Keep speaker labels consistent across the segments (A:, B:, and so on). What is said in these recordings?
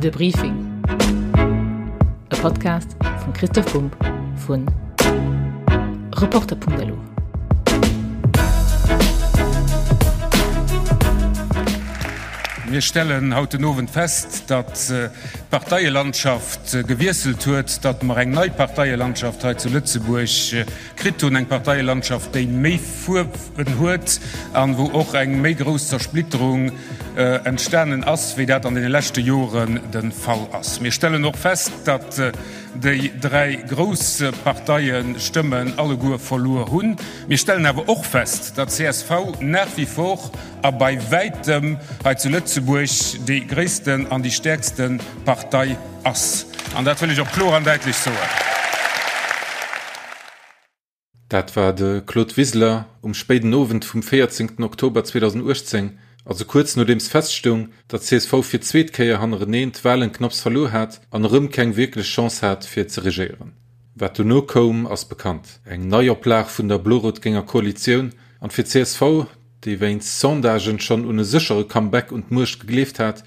A: De Briefing, e Podcast vum Christoph Bumb vu Reporter.lu.
B: Mir stellen haut den Owend fest, datt d'Parteielandschaft gewiesselt huet, datt mer eng nei Parteielandschaft hei zu Lëtzebuerg kritt hunn, eng Parteielandschaft, déi méi Fuerwen huet an wou och eng méi grouss Zersplitterung entstanen ass, wéi dat an deene leschte Joren de Fall ass. Mir stellen och fest, datt déi dräi grouss Parteie Stëmmen alleguer verluer hunn. Mir stellen awer och fest, datt csv nach wie vor a bei wäitem hei zu Lëtzebuerg déi gréissten an déi stäerkste Partei ass. An dat wëll ech och kloer an däitlech soen.
C: Dat war de Claude Wiseler um spéiden Owend vum 14 Oktober 2018, also kuerz nodeems feststoung, datt csv fir d'zweet Kéier hannereneen d'Walen knapps verluer hat an erëm keng wierklech Chance hat fir ze regéieren. Wat dono koum ass bekannt, eng Neioplag vun der blo-rot-génger Koalitioun an fir csv, déi wéinst Sondagen schonn un e séchere Comeback un d'Muecht gegleeft hat,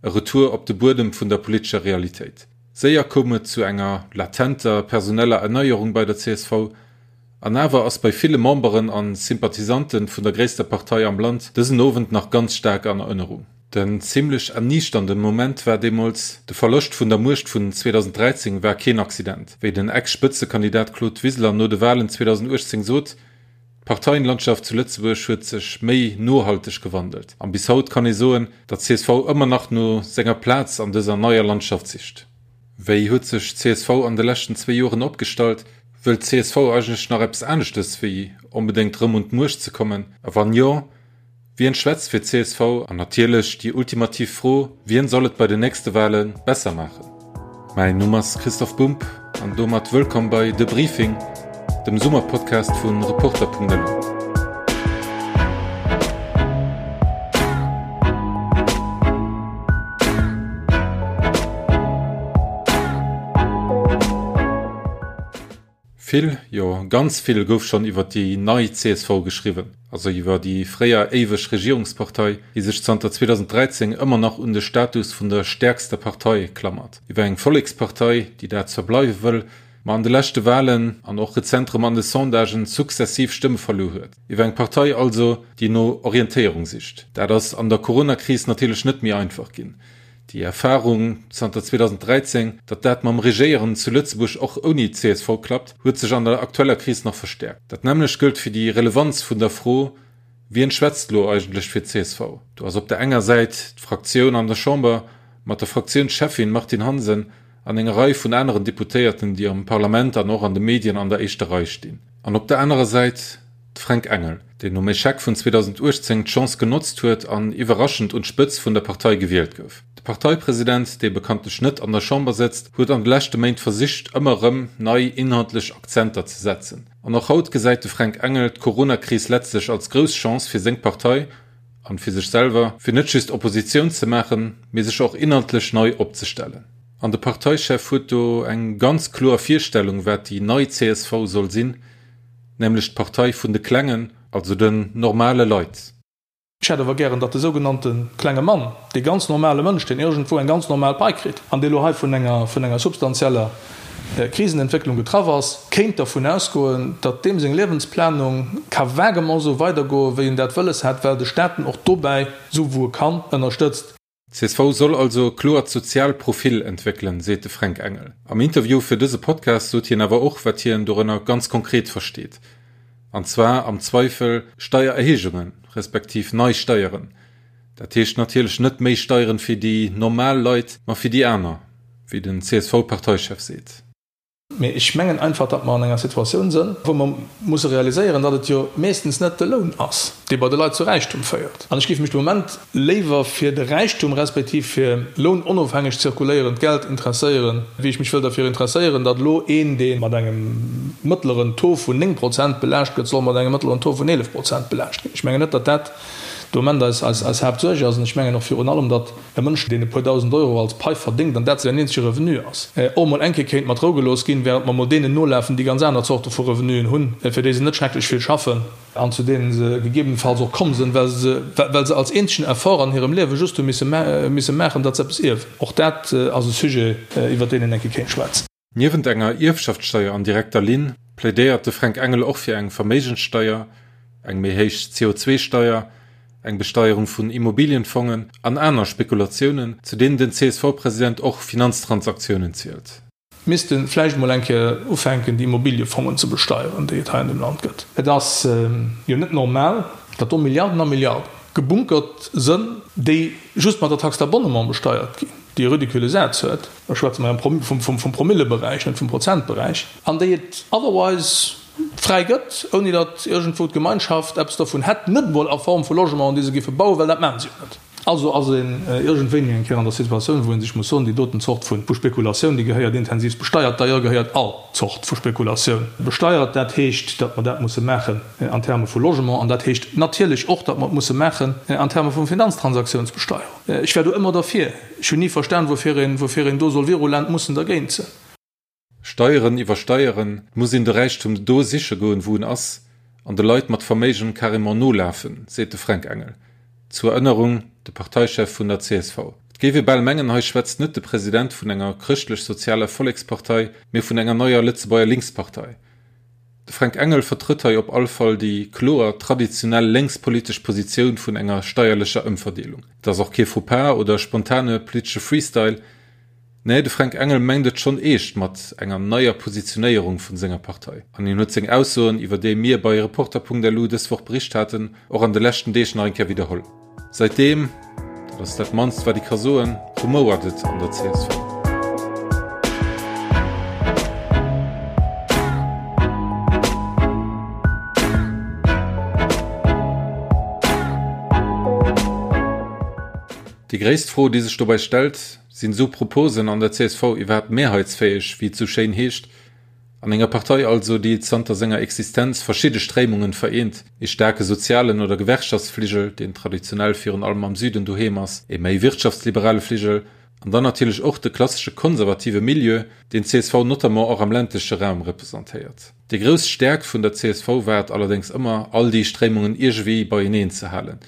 C: e Retour op de Buedem vun der politescher Realitéit. Séier koum et zu enger latenter personeller Erneierung bei der csv, an awer ass bei ville Memberen an Sympathisanten vun der gréisster Partei am Land dësen Owend nach ganz staark an Erënnerung. Den zimlech erniichternden Moment war deemools, de Verloscht vun der Muecht vun 2013 war keen Accident, wéi den Ex-Spëtzekandidat Claude Wiseler no de Walen 2018 sot, D'Parteienlandschaft zu Lëtzebuerg huet sech méi nohalteg gewandelt an bis haut kann ee soen, datt csv ëmmer nach no senger Plaz an dëser neier Landschaft sicht. Wéi huet sech csv an de leschten zwéi Joren opgestallt? Wëllt csv eigentlech nach eppes aneschtes wéi onbedéngt rëm un d'Muecht ze kommen? A wann jo, Wien schwätzt fir csv? An natierlech déi ultimativ Fro, Wien soll et bei den nächste Wale besser maachen? Mäin Numm ass Christoph Bumb an domat wëllkomm bei De Briefing, dem Summerpodcast vu Reporter.lu. Vill, jo ganz vill gouf schonn iwwer déi nei csv geschriwwen, also iwwer déi fréier éiweg Regierungspartei, déi sech zanter 2013 ëmmer nach un de Status vun der stäerkster Partei klammert, iwwer eng Vollekspartei, déi dat zwar bleiwe wëll, ma an de leschte Walen an och rezent rëm an de Sondagen sukzessiv Stëmme verluer huet, iwwer eng Partei also, déi no Orientéierung sicht. Dat ass an der Coronakris natierlech net méi einfach ginn. Déi Erfarung zanter 2013, datt dat mam Regéieren zu Lëtzebuerg och ouni csv klappt, huet sech an der aktueller Kris nach verstäerkt. Dat nämmlecht gëllt fir déi Relevanz vun der Fro, Wien schwätzt elo eigentlech fir csv? Do ass op der enger Säit d'Fraktioun an der Chamber mat der Fraktiounscheffin Martine Hansen an enger Rei vun aneren Deputéierten, déi am Parlament an och an de Medien an der éischter Rei stinn. An op der anerer Säit De Fränk Engel, deen nom Echec vun 2018 d'Chance genotzt huet an iwwerraschend un d'Spëtz vun der Partei gewielt gouf. De Parteipresident, dee bekanntlech net an der Chamber sëtzt, huet an de leschte Méint versicht, ëmmer erëm nei inhaltlech Akzenter ze setzen. An och haut gesäit de Fränk Engel d'Coronakris letztlech als grouss Chance fir seng Partei, an fir sech selwer, fir net just Oppositioun ze maachen, mee sech och inhaltlech nei opzestellen. An de Parteichef huet do eng ganz kloer Virstellung, wat déi nei csv soll sinn, nämlech d'Partei vun de Klengen, also den normale Leit.
D: Ech hätt awer gären, datt de sougenannte klenge Mann, dee ganz normale Mënsch, deen iergendwou eng ganz normal Pai kritt an dee lo hei vun enger, vun enger substantieller Krisenentwécklung getraff ass, kéint dervun ausgoen, datt deem seng Liewensplanung ka vaguement esou weidergoen, wéi en dat wëlles hat, well de Staat en och dobäi, esou wou e kann, ënnerstëtzt.
C: Csv soll also e kloert soziaalt Profil entwéckelen, seet de Fränk Engel. Am Interview fir dëse Podcast sot hien awer och, wat hien dorënner ganz konkret versteet. An zwar am Zweifel Steiererhéijungen, respektiv nei Steieren. Dat heescht natierlech net méi Steieren fir déi normal Leit, ma fir déi aner, wéi den CSV-Parteichef seet.
D: Mee ech mengen einfach, datt mer an enger Situatioun sënn, wou mer musse realiséieren, datt et jo meeschtens net de Loun ass, dee bei de Leit zu Räichtum féiert. An ech géif mech de Moment léiwer fir de Räichtum respektiv fir lounonofhängeg zirkuléierend Geld interesséieren, wéi ech mech wëll derfir interesséieren, datt elo een, dee mat engem mëttleren Taux vun 9 Prozent belaascht gëtt, soll mat engem mëttleren Taux vun 11 Prozent belaascht ginn. Ech mengen net, datt dat. De Moment eis, eis, eis Haaptsuerg ass. An ech mengen och virun allem, datt e Mënsch, deen e puer dausend Euro als Pai verdéngt an dat säin eenzege Revenu ass, och emol eng Kéier kéint mat Rou gelooss ginn, während mer emol deenen nolafen, déi ganz aner Zorte vu Revenuen hunn, fir déi se net schrecklech vill schaffen an zu deenen se gegebenenfalls och komm sinn, well se, well se als eenzegen Effort an hirem Liewe just hu misse, misse maachen, datt se eppes ierwen. Och dat ass e Sujet, iwwert deen een eng Kéier kéint schwätzen.
C: Niewent enger Ierfschaftssteier an direkter Linn plädéiert de Fränk Engel och fir eng Verméigenssteier, eng méi héich CO2-Steier, eng Besteierung vun Immobilienfongen an aner Spekulatiounen, zu deenen den CSV-President och Finanztransaktiounen zielt.
D: Misste vläicht emol eng Kéier ufänken, déi Immobiliefongen ze besteieren, déi et hei an dem Land gëtt. Et ass jo net normal, datt do Milliarden a Milliarden gebunkert sënn, déi just mat der Taxe d'abonnement besteiert ginn, déi e ridicule Saz huet, da schwätze mer jo vum Promilleberäich, net vum Prozentberäich, an déi et otherwise fräi gëtt, ouni datt iergendwou d'Gemeinschaft eppes dovun hätt, net emol a Form vu Logementen, déi se géife bauen, well dat maache se jo net. Also ass een iergendwéini eng Kéier an der Situatioun, wou ee sech muss soen, déi doten Zort vu Spekulatioun, déi gehéiert intensivst besteiert. D'ailleurs gehéiert all Zort vu Spekulatioun besteiert. Dat heescht, datt mer dat musse maachen an Terme vu Logement an dat heescht natierlech och, datt mer et musse maachen an Terme vu Finanztransaktiounsbesteuerung. Ech war do ëmmer derfir. Ech hunn ni verstan, woufir een, woufir een do soll virulent mussen dergéint sinn.
C: Steieren iwwersteieren, et muss een de Räichtum do siche goen, wou en ass, an de Leit mat Verméigen carrément nolafen, seet de Fränk Engel. Zur Erënnerung, de Parteichef vun der csv. Et géif ee bal mengen, hei schwätzt net de President vun enger chrëschtlech-sozialer Vollekspartei, mee vun enger neier Lëtzebuerger Linkspartei. De Fränk Engel vertrëtt hei op all Fall déi kloer traditionell lénkspolitesch Positioun vun enger steierlecher Ëmverdeelung. Et ass och kee Faux-pas oder spontane politesche Freestyle. Nee, de Fränk Engel mengt et schonn eescht mat enger neier Positionéierung vun senger Partei. An hien huet seng Aussoen, iwwer déi mir bei Reporter.lu dës Woch bericht haten, och an de leschten Deeg nach eng Kéier widderholl. Säitdeem, dat ass dat mannst wat ee ka soen, rumouert et an der csv. Déi gréisst Fro, déi sech dobäi stellt, Sinn esou Proposen an der csv iwwerhaapt mehrheitsfäeg, wéi et esou schéin heescht? An enger Partei also, déi zanter senger Existenz verschidde Stréimungen vereent, ee staarke sozialen oder Gewerkschaftsfligel, deen traditionell virun allem am Süden doheem ass, ee méi wirtschaftsliberale Fligel an dann natierlech och de klassesche konservative Milieu, deen d'CSV notamment och am ländleche Raum representéiert. Déi grouss Stäerkt vun der csv war et allerdéngs ëmmer, all déi Stréimungen iergewéi beieneen ze halen.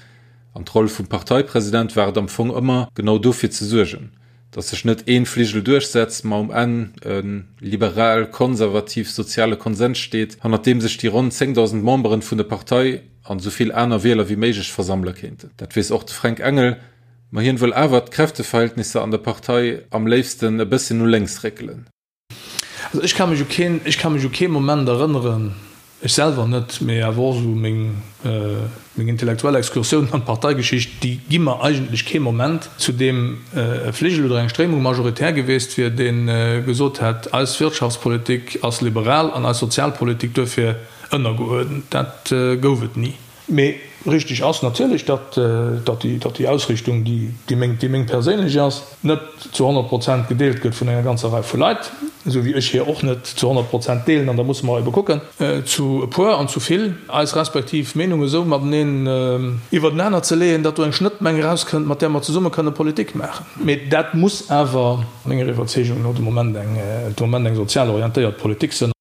C: An d'Roll vum Parteipresident war et am Fong ëmmer, genau dofir ze suergen, datt sech net ee Fligel duerchsetzt, ma um Enn e liberal-konservativ-soziale Konsens steet, hannert deem sech déi ronn 10.000 Memberen vun der Partei an esou vill aner Wieler wéi méiglech versammele kéinten. Dat weess och de Fränk Engel, ma hien wëll awer d'Kräfteverhältnisser an der Partei am léifsten e bësschen no lénks réckelen.
D: Also ech ka mech u keen, ech ka mech u kee Moment erënneren, ech selwer net, mee awer och esou meng, meng intellektuell Excursiounen an d'Parteigeschicht, déi gi mer eigentlech kee Moment, zu deem e Fligel oder eng Stréimung majoritär geweest wier, dee gesot hätt, eis Wirtschaftspolitik ass liberal an eis Sozialpolitik duerfir ënnergeuerdent. Dat gouf et ni. Mee richteg ass natierlech, datt déi Ausrichtung, déi meng perséinlech ass, net zu 100 Prozent gedeelt gëtt vun enger ganzer Rei vu Leit, esou wéi ech hir och net zu 100 Prozent deelen. An da musse mer ebe kucken, zu e puer an zu vill eis respektiv Meenunge esou mateneen iwwertenaner ze leeën, datt do eng Schnëttmeng erauskënnt, mat där mer zesumme kënne Politik maachen. Mee dat muss awer menger Iwwerzeegung no de Moment eng sozial orientéiert Politik sinn.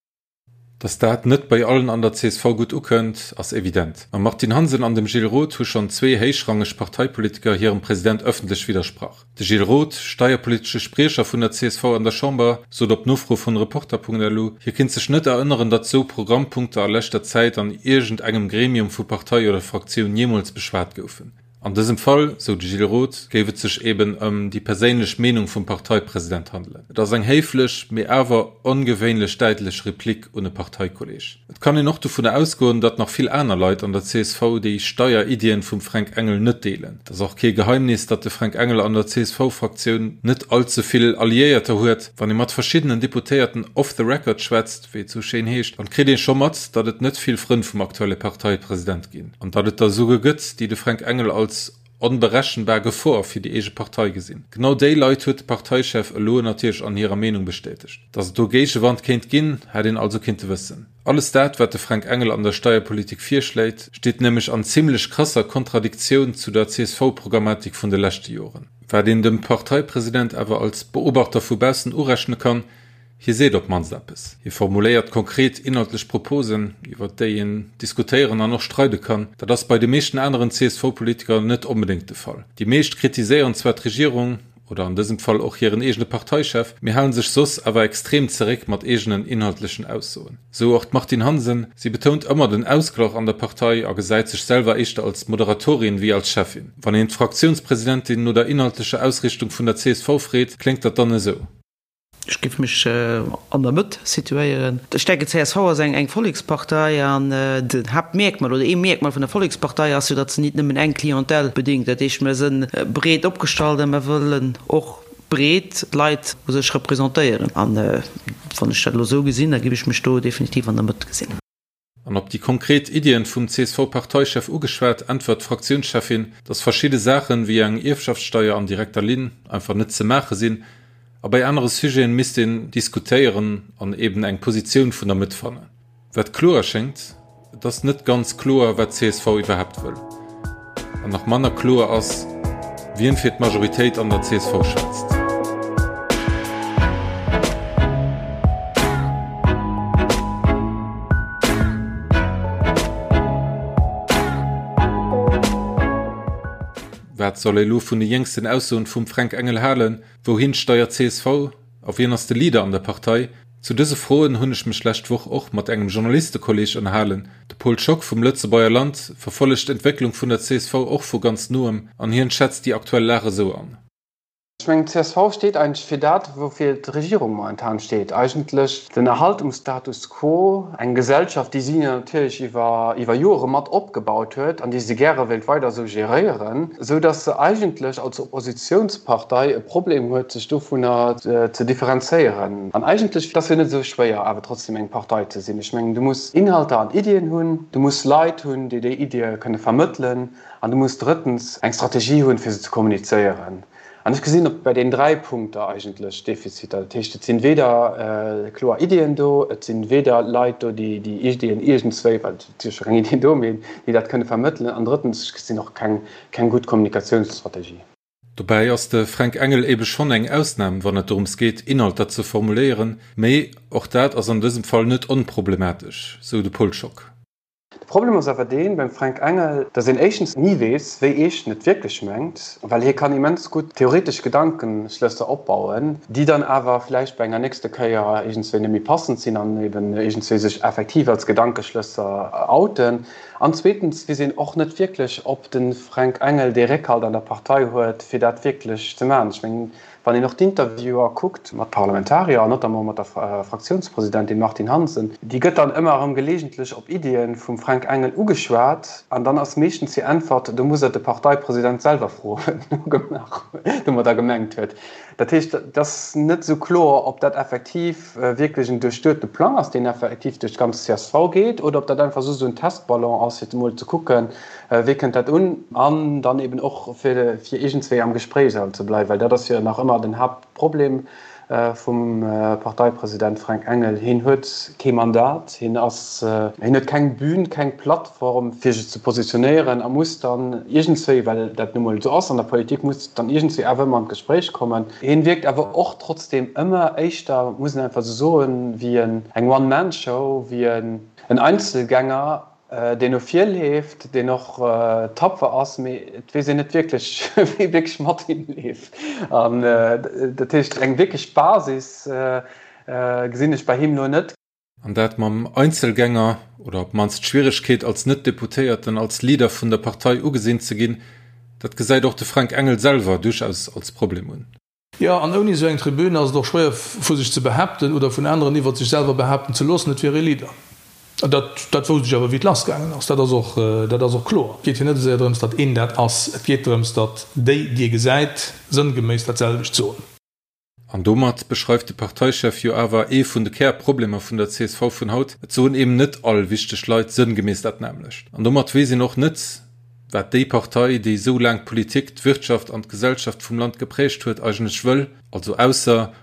C: Datt dat net bei allen an der csv gutt ukënnt, ass evident. Mam Martine Hansen an dem Gilles Roth hu schonn zwee héichrangeg Parteipolitiker hirem President ëffentlech widdersprach. De Gilles Roth, steierpolitesche Spriecher vun der csv an der Chamber, sot op Nofro vun Reporter.lu, hie kinnt sech net erënneren, datt sou Programmpunkter a leschter Zäit an iergend engem Gremium vu Partei oder Fraktioun jeemools beschwat goufen. An dësem Fall, sou de Gilles Roth, géif et sech eben ëm déi perséinlech Meenung vum Parteipresident handelen. Et ass eng héiflech, mee awer ongewéinlech däitlech Replik un e Parteikolleeg. Et kann een och dovunner ausgoen, datt nach vill aner Leit an der csv déi Steieriddien vum Fränk Engel net deelen. Et ass och kee Geheimnis, datt de Fränk Engel an der CSV-Fraktioun net all ze vill Alliéierter huet. Wann ee mat verschiddenen Deputéierten off the record schwätzt, wéi et sou schéin heescht, dann kritt ee scho mat, datt et net vill Frënn vum aktuelle Parteipresident ginn an datt et der esouguer gëtt, déi de Fränk Engel als onberechenbar Gefor fir déi eege Partei gesinn. Genau déi Leit huet de Parteichef elo natierlech an hirer Meenung bestätegt. Datt et do Géigewand kéint ginn, hätt een also kinnte wëssen. Alles dat, wat de Fränk Engel an der Steierpolitik virschléit, steet nämlech an zimmlech krasser Kontradiktioun zu der CSV-Programmatik vun de leschte Joren. Wat een dem Parteipresident awer als Beobachter vu baussen urechne kann, Hie seet op d'mannst eppes. Hie formuléiert konkret inhaltlech Proposen, iwwer déi een diskutéieren an och streide kann. Dat ass bei de meeschten aneren CSV-Politiker net onbedéngt de Fall. Déi meescht kritiséieren zwar d'Regierung, oder an dësem Fall och hiren eegene Parteichef, mee halen sech soss awer extrem zeréck mat eegenen inhaltlechen Aussoen. Esou och d'Martine Hansen. Si betount ëmmer den Ausglach an der Partei a gesäit sech selwer éischter als Moderatorin wéi als Cheffin. Wann een d'Fraktiounspresidentin no der inhaltlecher Ausrichtung vun der csv freet, kléngt dat dann esou.
E: Ech géif mech an der Mëtt situéieren. Ech denken, csv ass eng Vollekspartei an den Haaptmierkmal oder ee Mierkmal vun der Vollekspartei ass jo, datt se nit nëmmen eng Clientèle bedéngt. Dat heescht, mer sënn breet opgestallt a mer wëllen och breet d'Leit u sech representéieren. An wann ech dat elo esou gesinn, da géif ech mech do definitiv an der Mëtt gesinn.
C: An op déi konkret Iddien vum CSV-Parteichef ugeschwat, äntwert d'Fraktiounscheffin, datt verschidde Saachen, wéi eng Ierfschaftssteier an direkter Linn, einfach net ze maache sinn a bei anere Sujeten misst een diskutéieren an eben eng Positioun vun der Mëtt fannen. Wat kloer schéngt, et ass net ganz kloer, wat csv iwwerhaapt wëll. An nach manner kloer ass, wien fir d'Majoritéit an der csv schwätzt. Wat soll ee lo vun de jéngsten Aussoen vum Fränk Engel halen? Wouhin steiert csv? A wien ass de Leader an der Partei? Zu dëse Froen hunn ech mech lescht Woch och mat engem Journalistekolleeg ënnerhalen. De Paul Schock vum Lëtzebuerger Land verfollegt d'Entwécklung vun der csv och vu ganz noem an hien schätzt déi aktuell Lag esou an.
F: Ech mengen, d'CSV steet eigentlech fir dat, woufir d'Regierung momentan steet, eigentlech den Erhalt um Status quo, eng Gesellschaft, déi si natierlech iwwer iwwer Jore mat opgebaut huet an déi se gäre wéilt weider esou geréieren, esou datt se eigentlech als Oppositionspartei e Problem huet, sech dovunner ze differenzéieren. An eigentlech, et ass jo net esou schwéier, awer trotzdem eng Partei ze sinn. Ech mengen, du muss Inhalter an Iddien hunn, du muss Leit hunn, déi déi Iddie kënne vermëttelen an du muss drëttens eng Strategie hunn, fir se ze kommunizéieren. An ech gesinn op bei deenen dräi Punkter eigentlech Defiziter. Dat heescht, et sinn weder kloer Iddien do, et sinn weder Leit do, déi déi Iddien iergendswéi, well et si jo scho keng Iddien do, mee déi dat kënne vermëttelen an drëttens, ech gesinn och keng keng gutt Kommunikatiounsstrategie.
C: Dobäi ass de Fränk Engel ebe schonn eng Ausnam, wann et dorëms geet, Inhalter ze formuléieren, mee och dat ass an dësem Fall net onproblematesch, sou de Paul Schock.
F: De Problem ass awer deen beim Fränk Engel, datt een éischtens ni weess, wéi eescht en et wierklech mengt, well hie kann immens gutt theoretesch Gedankenschlësser opbauen, déi dann awer vläicht bei enger nächste Kéier iergendswéi net méi passend sinn an eben iergendswéi sech effektiv als Gedankeschlësser outen. An zweetens weess een och net wierklech, ob de Fränk Engel dee Réckhalt an der Partei huet, fir dat wierklech ze maachen. Ech mengen, wann een och d'Interviewer kuckt mat Parlamentarier an notamment mat der Fraktiounspresidentin Martine Hansen, déi gëtt dann ëmmer erëm gelegentlech op Iddie vum Fränk Engel ugeschwat an dann ass meeschtens hir Äntwert, do muss Der de Parteipresident selwer froen, wat en domadder gemengt huet. Dat heescht, et ass net esou kloer, ob dat effektiv wierklech en duerchduete Plang ass, deen effektiv duerch d'ganz csv geet, oder ob dat einfach just esou en Testballon ass, fir emol ze kucken, wéi kënnt dat un, an dann eben och fir iergendswéi am Gespréich ze bleiwen, well dat ass jo nach ëmmer den Haaptproblem vum Parteipresident Fränk Engel. Hien huet kee Mandat, hien ass, hien huet keng Bühn, keng Plattform, fir sech ze positionéieren a muss dann iergendswéi, well dat nu mol esou ass an der Politik, muss dann iergendswéi awer ëmmer an d'Gespréich kommen. Hien wierkt awer och trotzdeem ëmmer éischter, muss een einfach esou soen, wéi eng One-Man-Show, wéi en Einzelgänger, deen no vir leeft, deen och tapfer ass, mee et weess een net wierklech, wie wierklech mat him leeft. An dat heescht, eng wierklech Basis gesinn ech bei him elo net.
C: An dat mam Einzelgänger, oder op d'mannst d'Schwieregkeet als Net-Deputéierten als Leader vun der Partei ugesinn ze ginn, dat gesäit och de Fränk Engel selwer duerchaus als Problem un.
D: Jo, an ouni esou eng Tribün ass et och schwéier vu sech ze behaapten oder vun aneren iwwert sech selwer behaapten ze loossen, et wier ee Leader. An dat, dat wousst ech awer wéi et lassgaangen ass. Dat ass och, dat ass och kloer. Et geet jo net esou séier drëms, datt een dat ass. Et geet drëms, datt déi, déi ee gesäit, sënngeméiss dat selwecht soen.
C: An domat beschreift de Parteichef jo awer ee vun de Kärproblemer vun der csv vun haut, Et soen eben net all wichteg Leit sënngeméiss dat nämmlecht. An domat weess een och net, Wat déi Partei, déi esou laang d'Politik, d'Wirtschaft an d'Gesellschaft vum Land geprägt huet, eigentlech wëll, also ausser,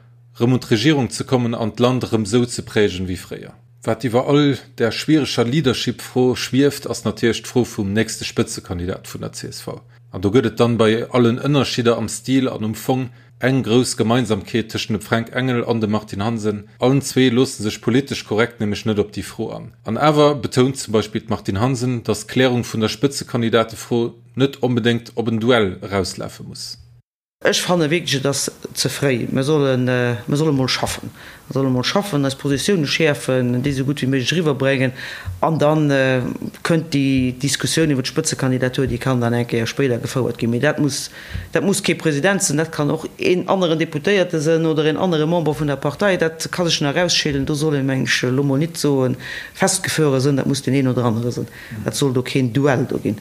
C: rëm un d'Regierung ze kommen an d'Land erëm esou ze prägen wéi fréier. Wat iwwer all där schwiereger Leadership-Fro schwieft, ass natierlech d'Fro vum nächste Spëtzekandidat vun der csv. An do gëtt et dann bei allen Ënnerschidder am Stil an um Fong eng grouss Gemeinsamkeet tëschent dem Fränk Engel an dem Martine Hansen, Allen zwee loosse sech politesch korrekt nämlech net op déi Fro an. An awer betount zum Beispill d'Martine Hansen, datt d'Klärung vun der Spëtzekandidatefro net onbedéngt op en Duell erauslafe muss.
E: Ech fanne wierklech, et ass ze fréi. Mir sollen, mir solle mol schaffen. Mir solle mol schaffen, eis Positioune schäerfen, déi esou gutt wéi méiglech eriwwerbréngen an da kënnt déi Diskussioun iwwer d'Spëtzekandidatur, déi kann dann eng Kéier spéider gefouert ginn. Mee dat muss, dat muss kee President sinn, dat kann och een aneren Deputéierte sinn oder een anere Member vun der Partei. Dat ka sech nach erausscheelen. Do soll een, meng ech, elo mol nit soen, festgefuere sinn, dat muss deen een oder anere sinn. Dat soll do keen Duell do ginn.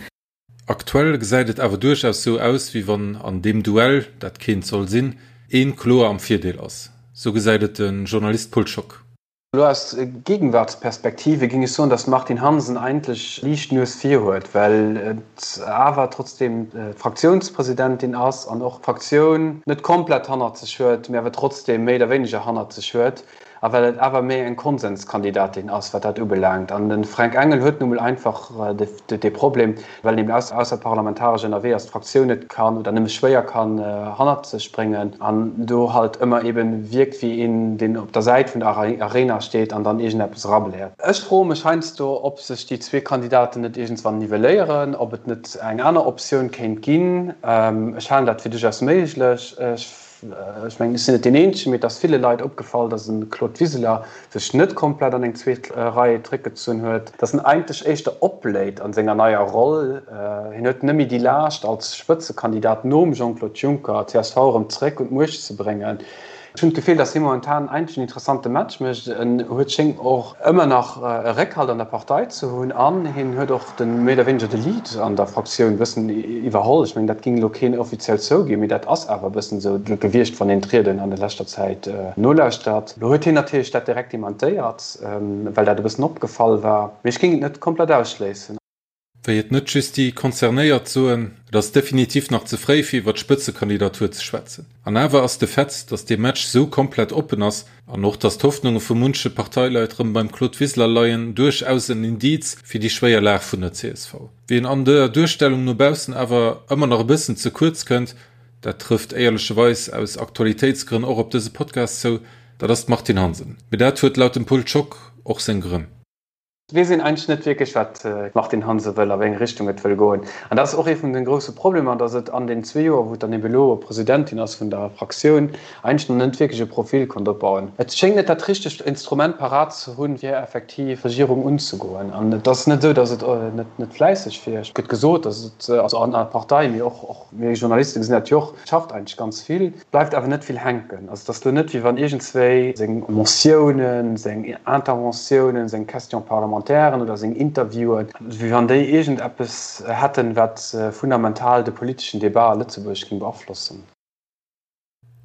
C: Aktuell gesäit et awer duerchaus sou aus, wéi wann an deem Duell, dat keent soll sinn, een kloer am Virdeel ass. Sou gesäit et de Journalist Pol Schock.
F: Elo aus Gegenwartsperspektive géing ech soen, datt d'Martine Hansen eigentlech liicht d'Nues vir huet, well et awer trotzdeem d'Fraktiounspresidentin ass an och d'Fraktioun net komplett hannert sech huet, mee awer trotzdeem méi oder wéineger hannert sech huet. A well et awer méi eng Konsenskandidatin ass, wat dat ubelaangt. An de Fränk Engel huet nu mol einfach dee Problem, well en eben ausserparlamentaresch ënnerwee ass, d'Fraktioun net kann oder nëmme schwéier kann hannert sech bréngen an do halt ëmmer eben wierkt wéi een, deen op der Säit vun der Arena steet an dann iergendeppes erabläert. Ech froe mech heiansdo, ob sech déi zwee Kandidaten net iergendswann nivelléieren, ob et net eng aner Optioun kéint ginn. Ech halen dat fir duerchaus méiglech. Ech Ech mengen, ech sinn net deen Eenzegen, mee et ass ville Leit opgefall, datt e Claude Wiseler sech net komplett an eng zweet Rei zréckgezunn huet, datt en eigentlech éischter opbléit a senger neier Roll. Hien huet net méi déi Laascht, als Spëtzekandidat nom Jean-Claude Juncker d'CSV erëm zréck un d'Muecht ze bréngen. Ech hunn d'Gefill, datt hie momentan eigentlech en interessante Match mécht. En huet schéngt och ëmmer nach e Réckhalt an der Partei ze hunn an hien huet och de méi oder wéineger de Lead an der Fraktioun e bëssen iwwerholl. Ech mengen, dat géing elo keen offiziell zouginn, mee dat ass awer e bëssen esou gewiescht, wann een d'Rieden an der leschter Zäit nolauschtert. Elo huet hien natierlech dat direkt dementéiert, well dat e bëssen opgefall war, mee ech géing et net komplett ausschléissen.
C: Wéi et net just déi Concernéiert soen, et ass definitiv nach ze fréi fir iwwer d'Spëtzekandidatur ze schwätzen. An awer ass de Fait, datt dee Match sou komplett oppen ass, an och datt d'Hoffnunge vu munche Parteileit rëm beim Claude Wiseler leien, duerchaus en Indiz fir déi schwéier Lag vun der csv. Wien an der Duerstellung no baussen awer ëmmer nach e bëssen ze kuerz kënnt, dat trëfft éierlecheweis aus Aktualitéitsgrënn och op dëse Podcast zou, dat ass d'Martine Hansen. Mee dat huet laut dem Pol Schock och seng Grënn.
F: Et weess een eigentlech net wierklech, wat d'Martine Hansen wëll, a wéi eng Richtung et wëll goen. An dat ass och ee vun de grousse Problemer, datt et an den zwee Joer, wou et dann ebe elo Presidentin ass vun der Fraktioun, eigentlech nach net wierklech e Profil konnt opbauen. Et schéngt net dat richtegt Instrument parat ze hunn, fir effektiv d'Regierung unzegoen. An et ass net esou, datt et net fläisseg wier. Et gëtt gesot, datt et, also an der Partei, mee och mir Journaliste gesinn dat jo och, et schafft eigentlech ganz vill. Bleift awer net vill hänken. Also et ass elo net, wéi wann iergendswéi seng Motiounen, seng Interventiounen, seng Question-parlementairen oder seng Interviewen, wéi wann déi iergendeppes hätten, wat fundamental de politeschen Debat a Lëtzebuerg géing beaflossen.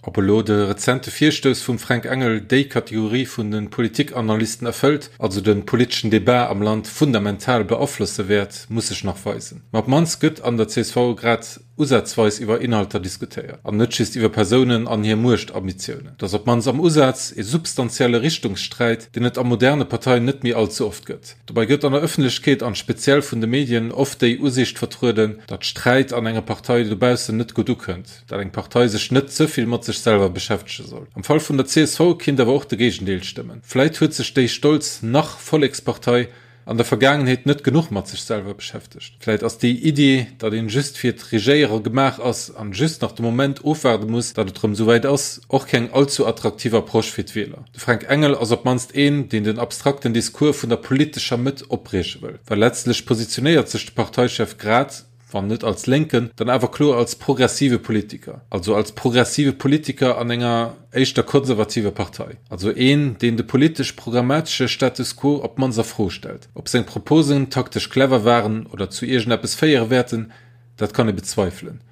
C: Ob elo de rezente Virstouss vum Fränk Engel déi Kategorie vun de Politikanalysten erfëllt, also de politeschen Debat am Land fundamental beaflosse wäert, muss sech nach weisen. Ma op d'mannst gëtt an der csv grad usazweis iwwer Inhalter diskutéiert, an net just iwwer Persounen an hir Muechtambitiounen. Et ass op d'mannst am Usaz e substantielle Richtungssträit, deen et a moderne Parteien net méi all ze oft gëtt. Dobäi gëtt an der Ëffentlechkeet an speziell vun de Medien oft déi Usiicht vertrueden, datt Sträit an enger Partei dobaussen net gutt ukënnt, datt eng Partei sech net ze vill mat sech selwer beschäftege soll. Am Fall vun der csv kinnt awer och de Géigendeel stëmmen. Vläit huet sech déi stolz nach-Vollekspartei an der Vergaangenheet net genuch mat sech selwer beschäftegt. Vläit ass déi Iddi, datt een just fir d'Regéierer gemaach ass an just nach de Moment ofwaarde muss, datt et rëm souwäit ass, och keng allzu attraktiv Approche fir d'Wieler. De Fränk Engel ass op d'mannst een, deen den abstrakten Discours vun der politescher Mëtt opbrieche wëll, well letztlech positionéiert sech de Parteichef grad, wann net als Lénken, dann awer kloer als progressive Politiker, also als progressive Politiker an enger éischter konservativer Partei, also een, deen de politesch-programmatesche Status quo op d'mannst a Fro stellt. Ob seng Proposen taktesch clever waren oder zu iergendeppes féiere wäerten, dat kann ee bezweifelen.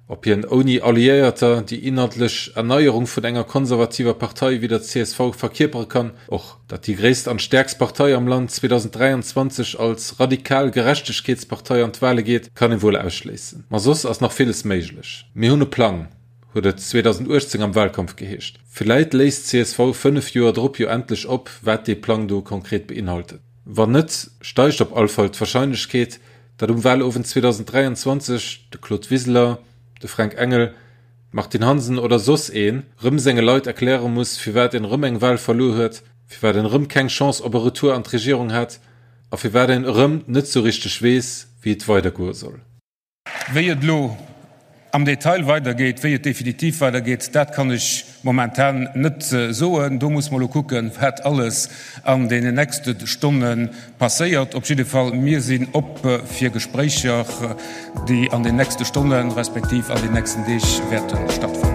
C: Ob hien ouni Alliéierter déi inhaltlech Erneierung vun enger konservativer Partei wéi der csv verkierpere kann, och. Datt déi gréisst an stäerkst Partei am Land 2023 als radikal Gerechtegkeetspartei an d'Wale geet, kann ee wuel ausschléissen. Ma soss ass nach villes méiglech. Mir hunn e Plang, Huet et 2018 am Wahlkampf geheescht. Villäit léist csv 5 Joer drop jo endlech op, wat dee Plang do konkret beinhaltet. Wann net, steigt op all Fall d'Wahrscheinlechkeet, datt um Wahlowend 2023 de Claude Wiseler, de Fränk Engel, d'Martine Hansen oder soss een rëm senge Leit erkläre muss, firwat een rëm eng Wahl verluer huet, firwat een rëm keng Chance op e Retour an d'Regierung hat a firwat een erëm net sou richteg weess, wéi et weidergoe soll.
B: Wéi et elo am Detail weidergeet, wéi et definitiv weidergeet, dat kann ech momentan net soen. Do muss mer elo kucken, wat alles an deenen nächste Stonne passéiert. Op jidde Fall, mir sinn op fir Gespréicher, déi an den nächste Stonne respektiv an den nächsten Deeg wäerte stattfannen.